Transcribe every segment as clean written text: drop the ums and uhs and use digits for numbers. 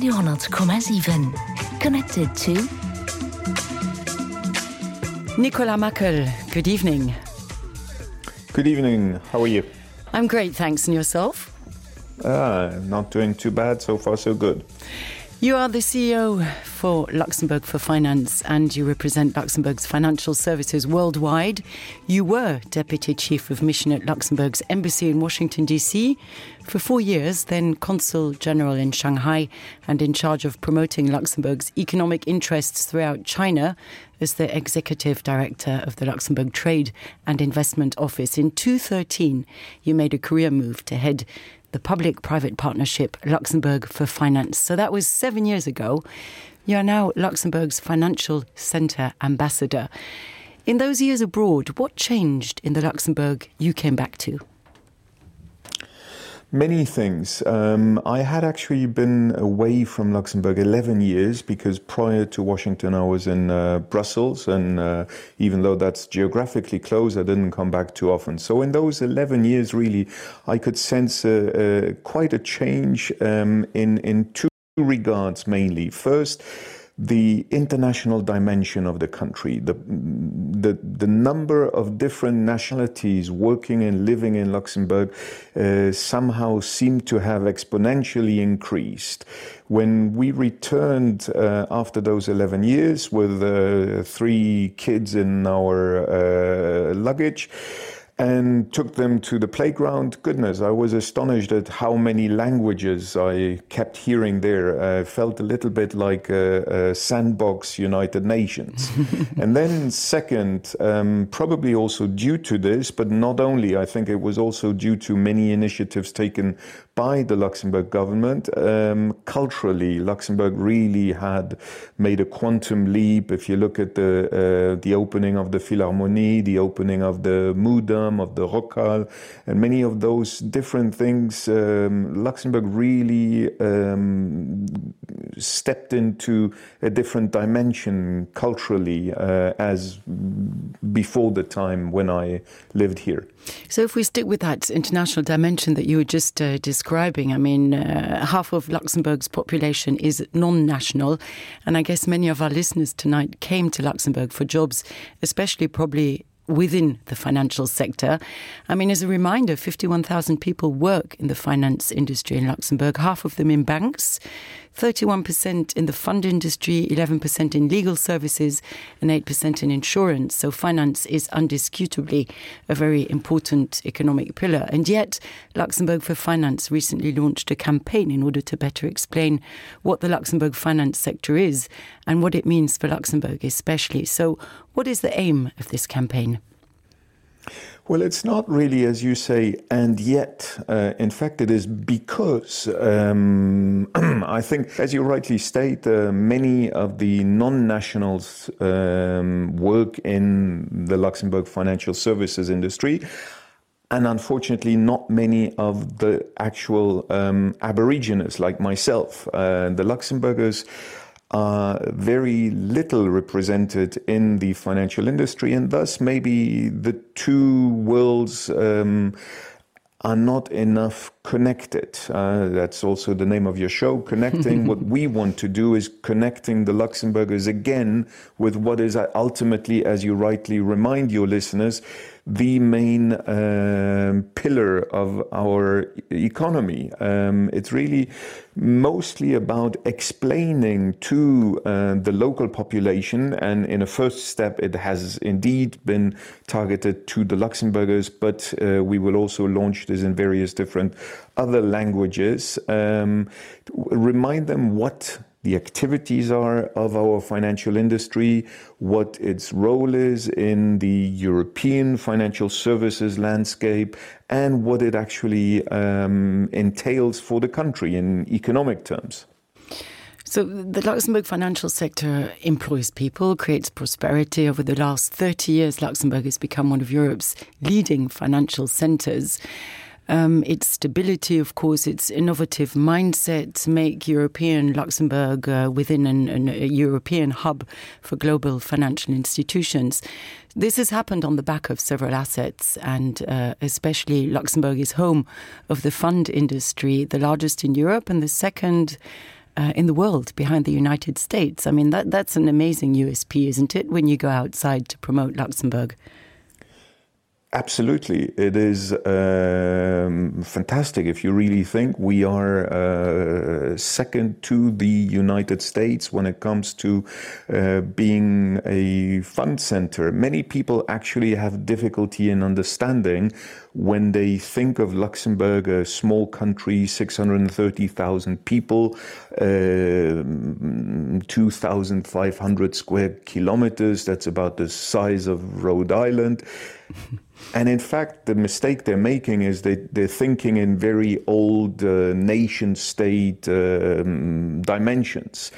200,7. Connected to Nicolas Mackel, good evening. Good evening. How are you? I'm great, thanks. And yourself? Not doing too bad. So far, so good. You are the CEO for Luxembourg for Finance and you represent Luxembourg's financial services worldwide. You were Deputy Chief of Mission at Luxembourg's Embassy in Washington, D.C. for 4 years, then Consul General in Shanghai and in charge of promoting Luxembourg's economic interests throughout China as the Executive Director of the Luxembourg Trade and Investment Office. In 2013, you made a career move to head the public-private partnership Luxembourg for Finance. So that was 7 years ago. You are now Luxembourg's Financial Centre Ambassador. In those years abroad, what changed in the Luxembourg you came back to? Many things. I had actually been away from Luxembourg 11 years because prior to Washington I was in Brussels, and even though that's geographically close, I didn't come back too often. So in those 11 years, really, I could sense quite a change in two regards mainly. First, the international dimension of the country, the number of different nationalities working and living in Luxembourg somehow seemed to have exponentially increased. When we returned after those 11 years with 3 kids in our luggage, and took them to the playground. Goodness, I was astonished at how many languages I kept hearing there. I felt a little bit like a sandbox United Nations. And then second, probably also due to this, but not only, I think it was also due to many initiatives taken by the Luxembourg government. Culturally, Luxembourg really had made a quantum leap. If you look at the opening of the Philharmonie, the opening of the Moudam, of the Rockhal, and many of those different things, Luxembourg really stepped into a different dimension culturally as before the time when I lived here. So if we stick with that international dimension that you were just describing, I mean, half of Luxembourg's population is non-national, and I guess many of our listeners tonight came to Luxembourg for jobs, especially probably within the financial sector. I mean, as a reminder, 51,000 people work in the finance industry in Luxembourg, half of them in banks, 31% in the fund industry, 11% in legal services, and 8% in insurance. So finance is undisputably a very important economic pillar. And yet, Luxembourg for Finance recently launched a campaign in order to better explain what the Luxembourg finance sector is and what it means for Luxembourg especially. So what is the aim of this campaign? Well, it's not really, as you say, and yet. In fact, it is because I think, as you rightly state, many of the non-nationals work in the Luxembourg financial services industry, and unfortunately not many of the actual Aborigines like myself. The Luxembourgers are very little represented in the financial industry, and thus maybe the two worlds are not enough connected. That's also the name of your show, Connecting. What we want to do is connecting the Luxembourgers again with what is ultimately, as you rightly remind your listeners, the main pillar of our economy. It's really mostly about explaining to the local population, and in a first step it has indeed been targeted to the Luxembourgers, but we will also launch this in various different other languages. Remind them what the activities are of our financial industry, what its role is in the European financial services landscape, and what it actually entails for the country in economic terms. So the Luxembourg financial sector employs people, creates prosperity. Over the last 30 years, Luxembourg has become one of Europe's leading financial centres. Its stability, of course, its innovative mindset make European Luxembourg within a European hub for global financial institutions. This has happened on the back of several assets, and especially Luxembourg is home of the fund industry, the largest in Europe and the second in the world behind the United States. I mean, that's an amazing USP, isn't it, when you go outside to promote Luxembourg? Absolutely. It is fantastic if you really think we are second to the United States when it comes to being a fund center. Many people actually have difficulty in understanding when they think of Luxembourg, a small country, 630,000 people, 2,500 square kilometers. That's about the size of Rhode Island. And in fact, the mistake they're making is they're thinking in very old nation-state dimensions.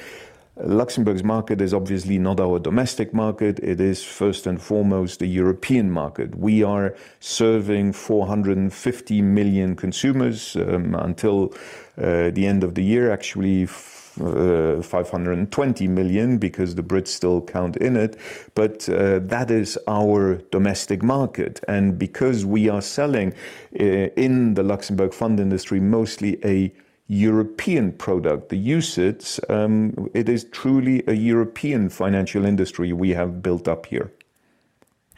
Luxembourg's market is obviously not our domestic market. It is first and foremost a European market. We are serving 450 million consumers until the end of the year, actually 520 million because the Brits still count in it. But that is our domestic market. And because we are selling in the Luxembourg fund industry mostly a European product, the UCITS, it is truly a European financial industry we have built up here.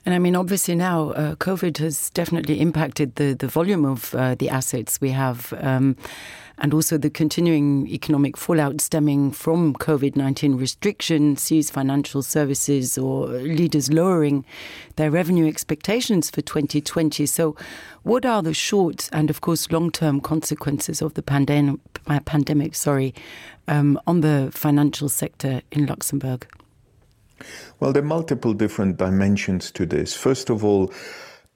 And I mean, obviously now, COVID has definitely impacted the volume of the assets we have, and also the continuing economic fallout stemming from COVID-19 restrictions sees financial services or leaders lowering their revenue expectations for 2020. So what are the short and, of course, long-term consequences of the pandemic on the financial sector in Luxembourg? Well, there are multiple different dimensions to this. First of all,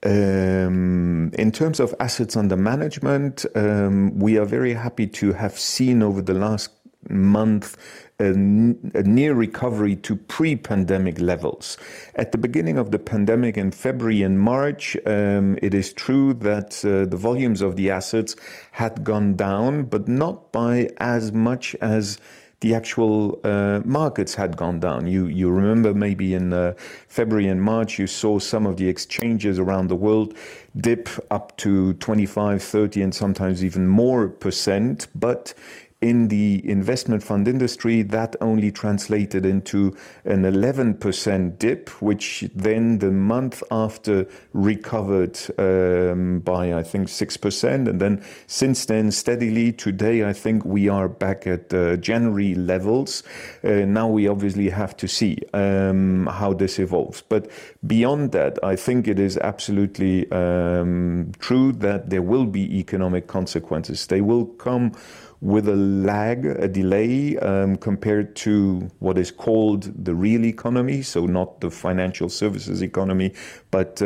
in terms of assets under management, we are very happy to have seen over the last month a near recovery to pre-pandemic levels. At the beginning of the pandemic in February and March, it is true that the volumes of the assets had gone down, but not by as much as the actual markets had gone down. You remember maybe in February and March, you saw some of the exchanges around the world dip up to 25, 30, and sometimes even more %. But in the investment fund industry, that only translated into an 11% dip, which then the month after recovered by, I think, 6%. And then since then, steadily, today, I think we are back at January levels. Now we obviously have to see how this evolves. But beyond that, I think it is absolutely true that there will be economic consequences. They will come with a lag, a delay, compared to what is called the real economy, so not the financial services economy, but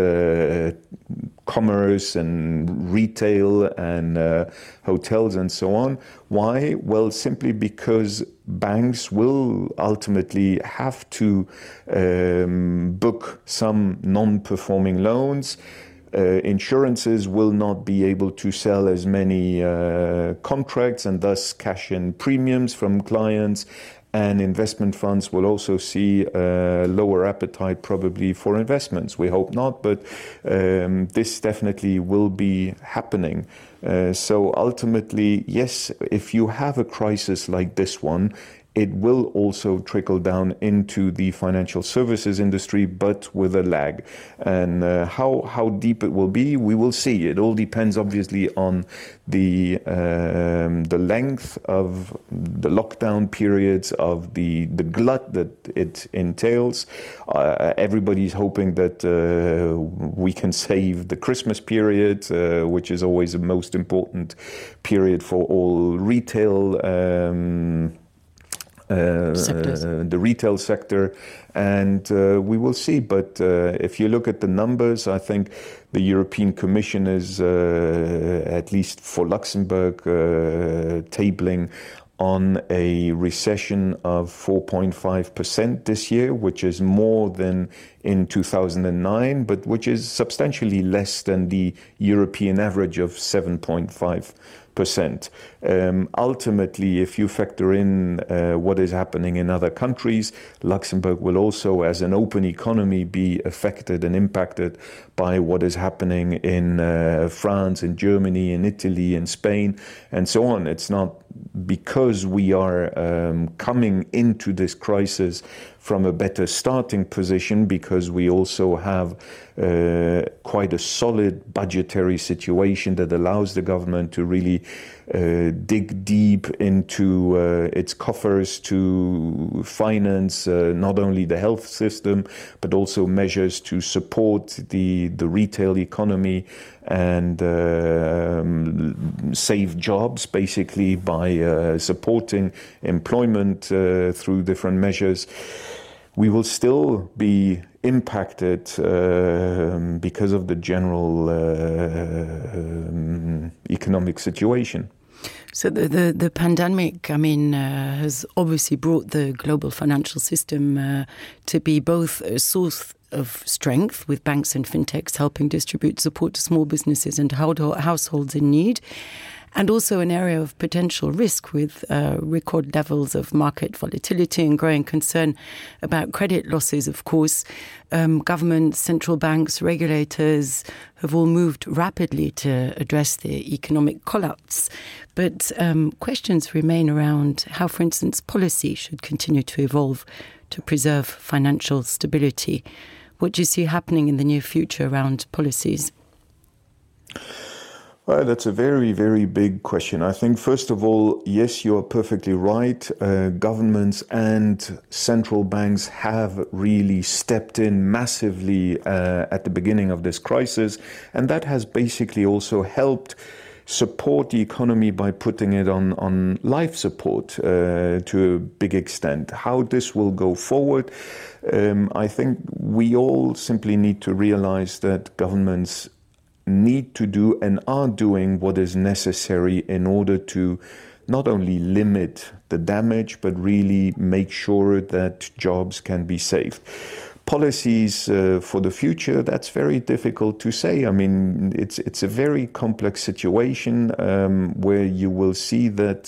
commerce and retail and hotels and so on. Why? Well, simply because banks will ultimately have to book some non-performing loans. Insurances will not be able to sell as many contracts and thus cash in premiums from clients, and investment funds will also see lower appetite probably for investments. We hope not, but this definitely will be happening. So ultimately, yes, if you have a crisis like this one, it will also trickle down into the financial services industry, but with a lag. And how deep it will be, we will see. It all depends, obviously, on the length of the lockdown periods, of the glut that it entails. Everybody's hoping that we can save the Christmas period, which is always the most important period for all retail the retail sector, and we will see. But if you look at the numbers, I think the European Commission is, at least for Luxembourg, tabling on a recession of 4.5% this year, which is more than in 2009, but which is substantially less than the European average of 7.5%. Ultimately, if you factor in what is happening in other countries, Luxembourg will also, as an open economy, be affected and impacted by what is happening in France, in Germany, in Italy, in Spain, and so on. It's not because we are coming into this crisis from a better starting position, because we also have quite a solid budgetary situation that allows the government to really dig deep into its coffers to finance not only the health system, but also measures to support the retail economy and save jobs, basically, by supporting employment through different measures. We will still be impacted because of the general economic situation. So the pandemic, has obviously brought the global financial system to be both a source of strength, with banks and fintechs helping distribute support to small businesses and households in need, and also an area of potential risk, with record levels of market volatility and growing concern about credit losses, of course. Governments, central banks, regulators have all moved rapidly to address the economic collapse. But questions remain around how, for instance, policy should continue to evolve to preserve financial stability. What do you see happening in the near future around policies? Well, that's a very, very big question. I think, first of all, yes, you are perfectly right. Governments and central banks have really stepped in massively at the beginning of this crisis. And that has basically also helped support the economy by putting it on life support to a big extent. How this will go forward, I think we all simply need to realize that governments need to do and are doing what is necessary in order to not only limit the damage, but really make sure that jobs can be saved. Policies for the future, that's very difficult to say. I mean, it's a very complex situation where you will see that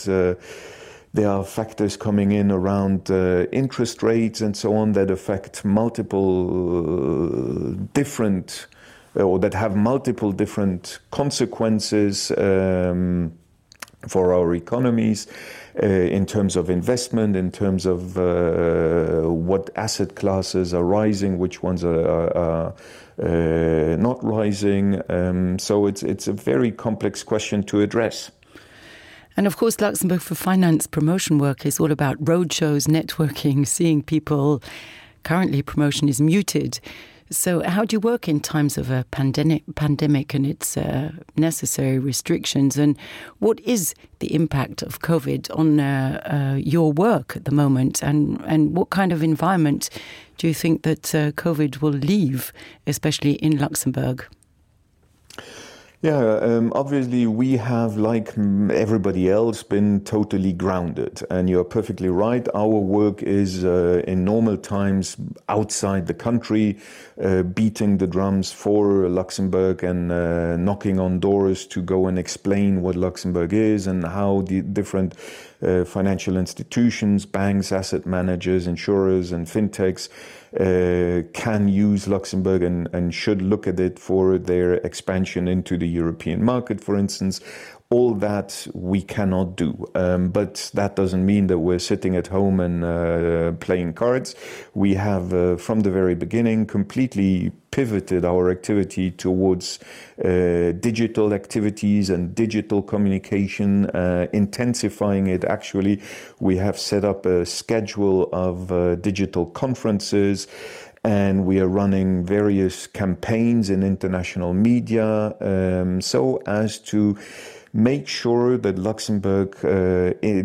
there are factors coming in around interest rates and so on that affect multiple different or that have multiple different consequences for our economies in terms of investment, in terms of what asset classes are rising, which ones are not rising. So it's a very complex question to address. And of course, Luxembourg for Finance promotion work is all about roadshows, networking, seeing people. Currently, promotion is muted. So how do you work in times of a pandemic and its necessary restrictions? And what is the impact of COVID on your work at the moment? And what kind of environment do you think that COVID will leave, especially in Luxembourg? Yeah, obviously we have, like everybody else, been totally grounded. And you're perfectly right. Our work is in normal times outside the country, beating the drums for Luxembourg and knocking on doors to go and explain what Luxembourg is and how the different financial institutions, banks, asset managers, insurers, and fintechs can use Luxembourg and should look at it for their expansion into the European market, for instance. All that we cannot do. But that doesn't mean that we're sitting at home and playing cards. We have, from the very beginning, completely pivoted our activity towards digital activities and digital communication, intensifying it. Actually, we have set up a schedule of digital conferences, and we are running various campaigns in international media so as to make sure that Luxembourg,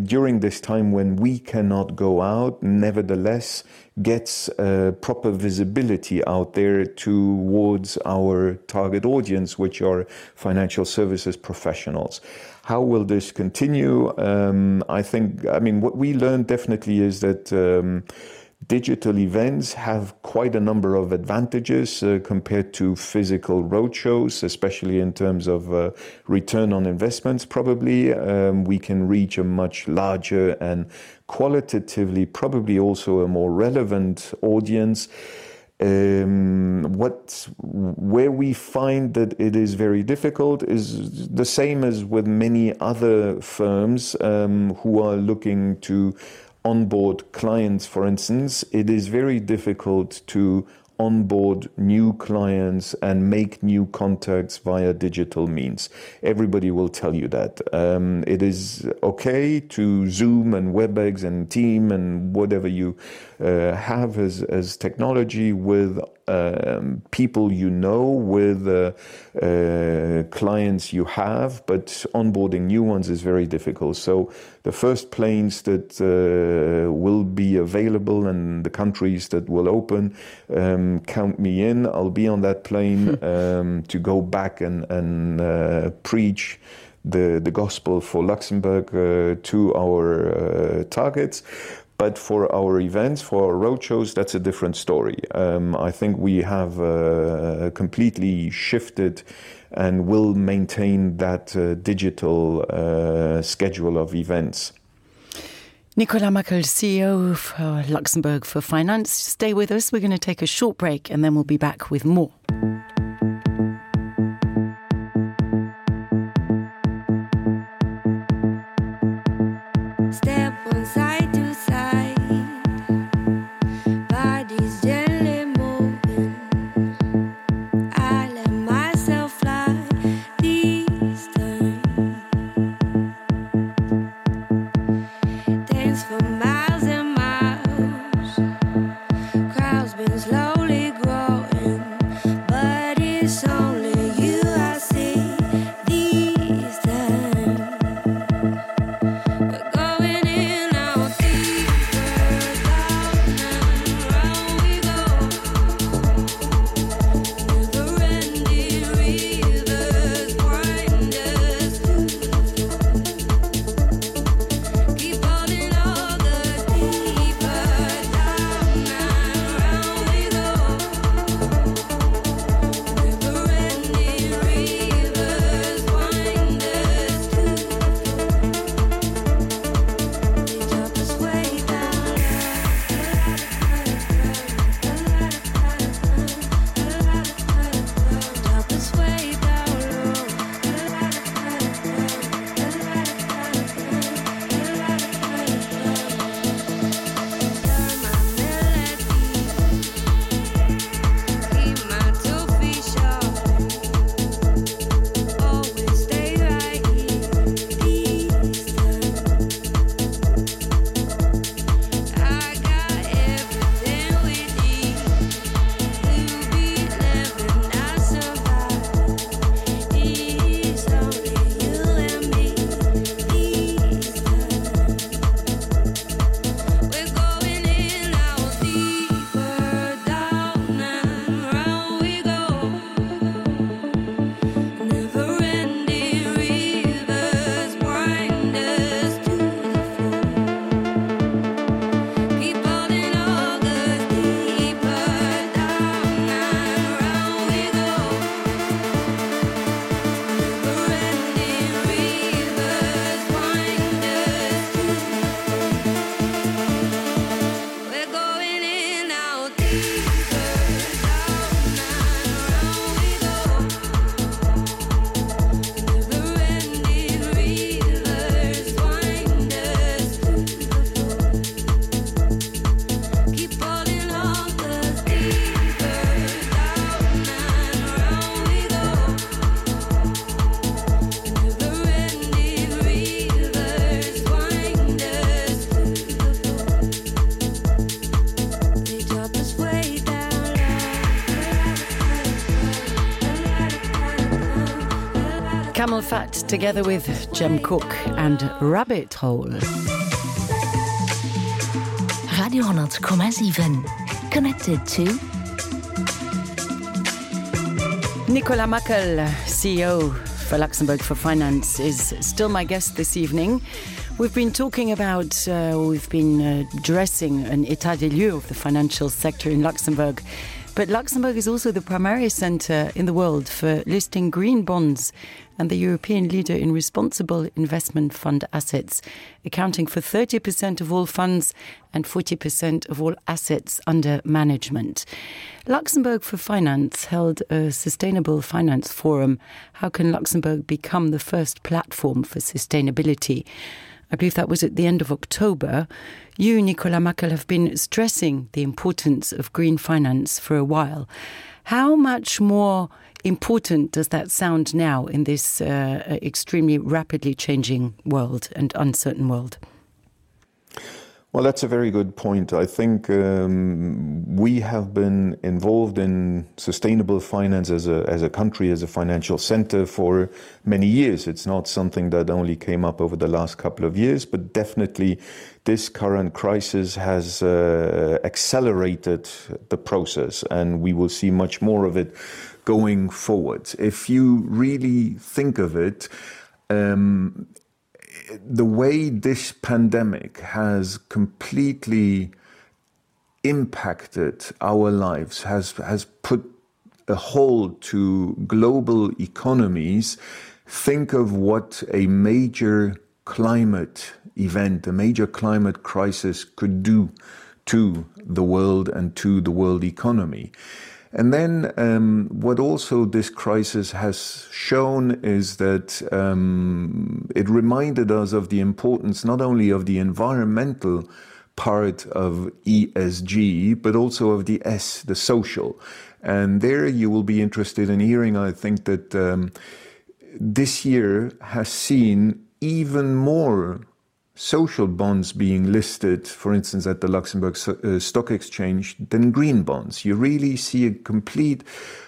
during this time when we cannot go out, nevertheless gets proper visibility out there towards our target audience, which are financial services professionals. How will this continue? I mean, what we learned definitely is that Digital events have quite a number of advantages compared to physical roadshows, especially in terms of return on investments, probably. We can reach a much larger and qualitatively probably also a more relevant audience. Where we find that it is very difficult is the same as with many other firms who are looking to onboard clients, for instance. It is very difficult to onboard new clients and make new contacts via digital means. Everybody will tell you that. It is okay to Zoom and WebEx and Team and whatever you have as technology with people you know, with clients you have, but onboarding new ones is very difficult. So the first planes that will be available and the countries that will open, count me in. I'll be on that plane to go back and preach the gospel for Luxembourg to our targets. But for our events, for our roadshows, that's a different story. I think we have completely shifted and will maintain that digital schedule of events. Nicolas Mackel, CEO for Luxembourg for Finance. Stay with us. We're going to take a short break and then we'll be back with more. Camel Fat together with Jem Cook and Rabbit Hole. Radio 100,7 connected to Nicolas Mackel, CEO for Luxembourg for Finance, is still my guest this evening. We've been talking about, addressing an état des lieux of the financial sector in Luxembourg. But Luxembourg is also the primary centre in the world for listing green bonds and the European leader in responsible investment fund assets, accounting for 30% of all funds and 40% of all assets under management. Luxembourg for Finance held a Sustainable Finance Forum. How can Luxembourg become the first platform for sustainability? I believe that was at the end of October. You, Nicolas Mackel, have been stressing the importance of green finance for a while. How much more important does that sound now in this extremely rapidly changing world and uncertain world? Well, that's a very good point. I think we have been involved in sustainable finance as a country, as a financial center for many years. It's not something that only came up over the last couple of years, but definitely this current crisis has accelerated the process, and we will see much more of it going forward. If you really think of it, the way this pandemic has completely impacted our lives, has put a hold to global economies. Think of what a major climate event, a major climate crisis could do to the world and to the world economy. And then what also this crisis has shown is that it reminded us of the importance not only of the environmental part of ESG, but also of the S, the social. And there you will be interested in hearing, I think, that this year has seen even more social bonds being listed, for instance, at the Luxembourg Stock Exchange, than green bonds. You really see a complete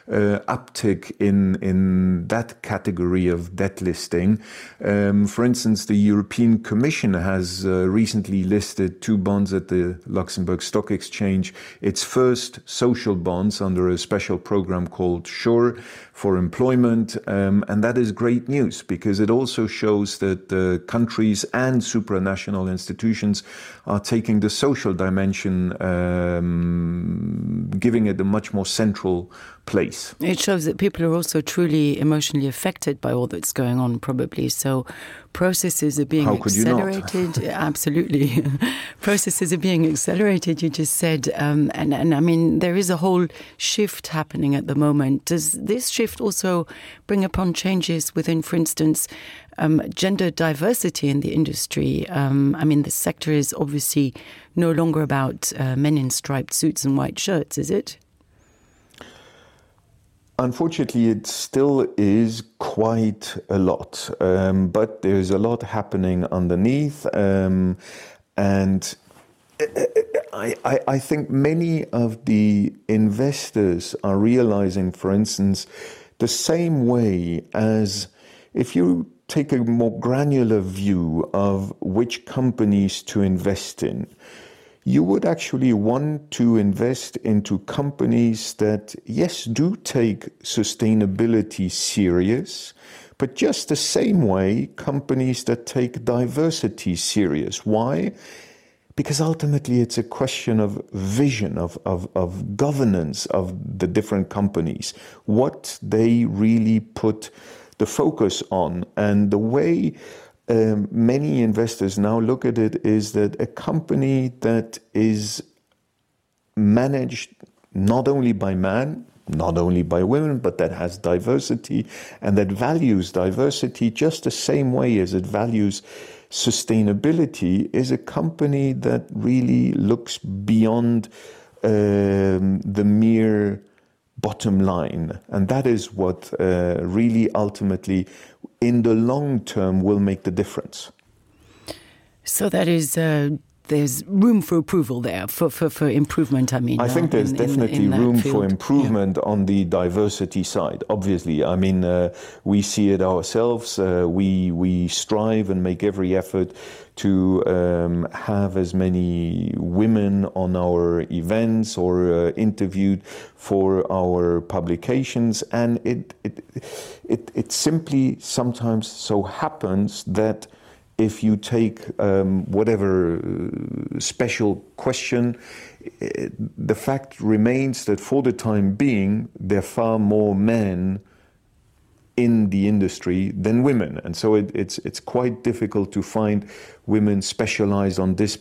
uptick in that category of debt listing. For instance, the European Commission has recently listed 2 bonds at the Luxembourg Stock Exchange, its first social bonds under a special program called SURE for employment. And that is great news because it also shows that countries and supranational institutions are taking the social dimension, giving it a much more central place. It shows that people are also truly emotionally affected by all that's going on, probably. So processes are being accelerated. Absolutely. Processes are being accelerated, you just said. And I mean, there is a whole shift happening at the moment. Does this shift also bring upon changes within, for instance, gender diversity in the industry? I mean, the sector is obviously no longer about men in striped suits and white shirts, is it? Unfortunately, it still is quite a lot, but there's a lot happening underneath. And I think many of the investors are realizing, for instance, the same way as if you take a more granular view of which companies to invest in, you would actually want to invest into companies that, yes, do take sustainability serious, but just the same way companies that take diversity serious. Why? Because ultimately it's a question of vision, of governance of the different companies, what they really put the focus on. And the way many investors now look at it is that a company that is managed not only by men, not only by women, but that has diversity and that values diversity just the same way as it values sustainability is a company that really looks beyond the mere bottom line. And that is what really ultimately in the long term will make the difference. So that is there's room for approval there, for improvement, I mean. I think there's definitely room for improvement on the diversity side, obviously. I mean, we see it ourselves. We strive and make every effort to have as many women on our events or interviewed for our publications, and it simply sometimes so happens that if you take whatever special question, the fact remains that for the time being, there are far more men in the industry than women, and so it's quite difficult to find women specialized on this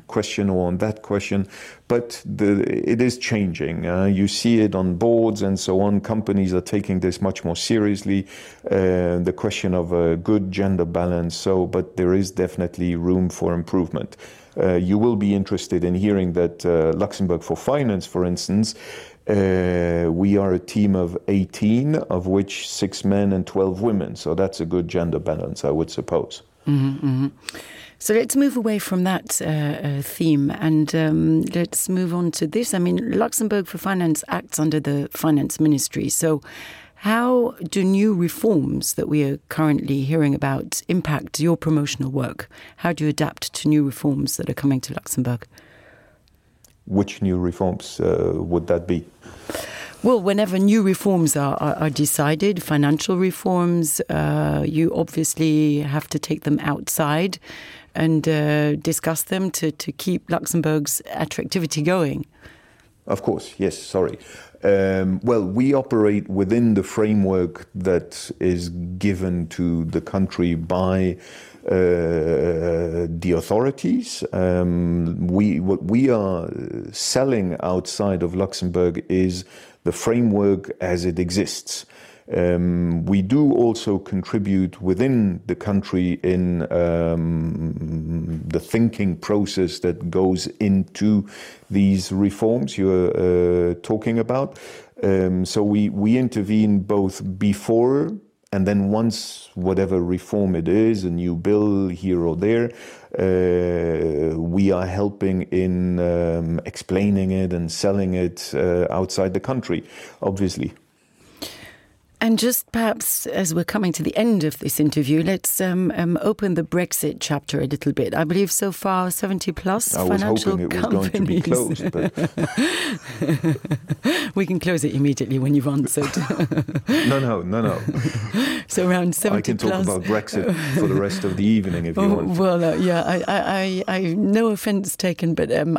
question or on that question. But it is changing. You see it on boards and so on. Companies are taking this much more seriously, the question of a good gender balance. So, but there is definitely room for improvement. You will be interested in hearing that Luxembourg for Finance, for instance, we are a team of 18, of which 6 men and 12 women. So that's a good gender balance, I would suppose. Mm-hmm, mm-hmm. So let's move away from that theme and let's move on to this. I mean, Luxembourg for Finance acts under the Finance Ministry. So how do new reforms that we are currently hearing about impact your promotional work? How do you adapt to new reforms that are coming to Luxembourg? Which new reforms would that be? Well, whenever new reforms are decided, financial reforms, you obviously have to take them outside and discuss them to keep Luxembourg's attractivity going. Of course, yes, sorry. Well, we operate within the framework that is given to the country by the authorities. What we are selling outside of Luxembourg is the framework as it exists. We do also contribute within the country in the thinking process that goes into these reforms you're talking about. So we intervene both before and then once whatever reform it is, a new bill here or there, we are helping in explaining it and selling it outside the country, obviously. And just perhaps as we're coming to the end of this interview, let's open the Brexit chapter a little bit. I believe so far 70 plus financial companies. I was hoping it was going to be closed. But we can close it immediately when you've answered. No. So around 70 I can talk about Brexit for the rest of the evening if you want. Well, yeah, I no offence taken, but I'm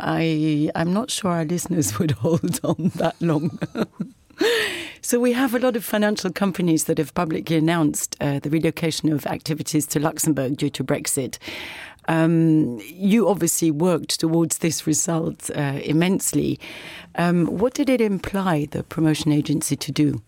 not sure our listeners would hold on that long. So we have a lot of financial companies that have publicly announced the relocation of activities to Luxembourg due to Brexit. You obviously worked towards this result immensely. What did it imply, the promotion agency, to do?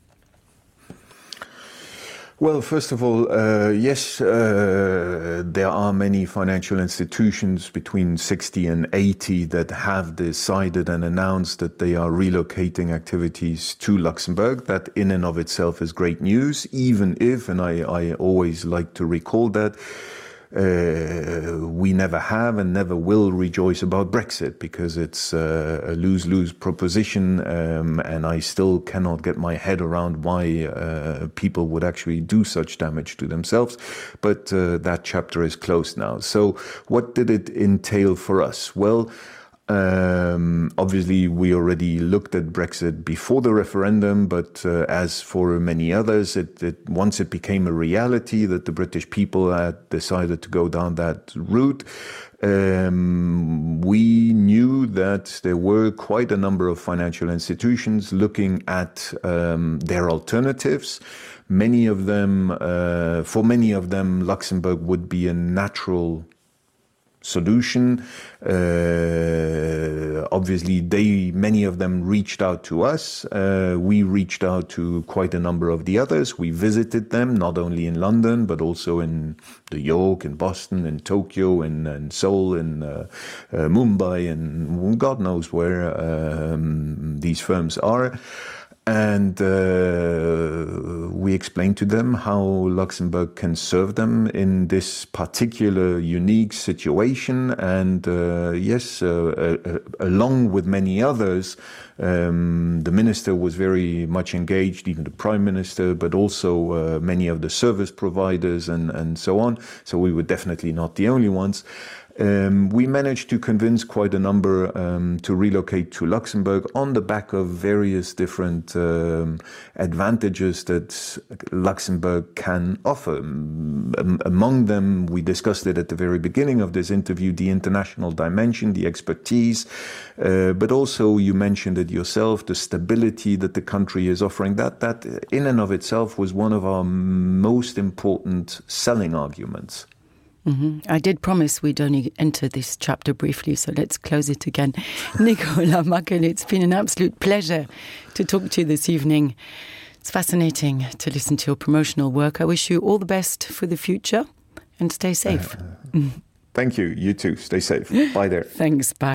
Well, first of all, yes, there are many financial institutions between 60 and 80 that have decided and announced that they are relocating activities to Luxembourg. That in and of itself is great news, even if, and I always like to recall that, we never have and never will rejoice about Brexit because it's a lose-lose proposition, and I still cannot get my head around why people would actually do such damage to themselves. But that chapter is closed now. So what did it entail for us? Well, obviously, we already looked at Brexit before the referendum, but as for many others, once it became a reality that the British people had decided to go down that route, we knew that there were quite a number of financial institutions looking at their alternatives. Many of them, for many of them, Luxembourg would be a natural solution. Obviously, many of them reached out to us. We reached out to quite a number of the others. We visited them, not only in London, but also in New York, in Boston, in Tokyo, in Seoul, in Mumbai, and God knows where these firms are. And we explained to them how Luxembourg can serve them in this particular unique situation. And yes, along with many others, the minister was very much engaged, even the prime minister, but also many of the service providers and so on. So we were definitely not the only ones. We managed to convince quite a number to relocate to Luxembourg on the back of various different advantages that Luxembourg can offer. Among them, we discussed it at the very beginning of this interview, the international dimension, the expertise, but also you mentioned it yourself, the stability that the country is offering. That in and of itself was one of our most important selling arguments. Mm-hmm. I did promise we'd only enter this chapter briefly, so let's close it again. Nicolas Mackel, it's been an absolute pleasure to talk to you this evening. It's fascinating to listen to your promotional work. I wish you all the best for the future and stay safe. Thank you. You too. Stay safe. Bye there. Thanks. Bye.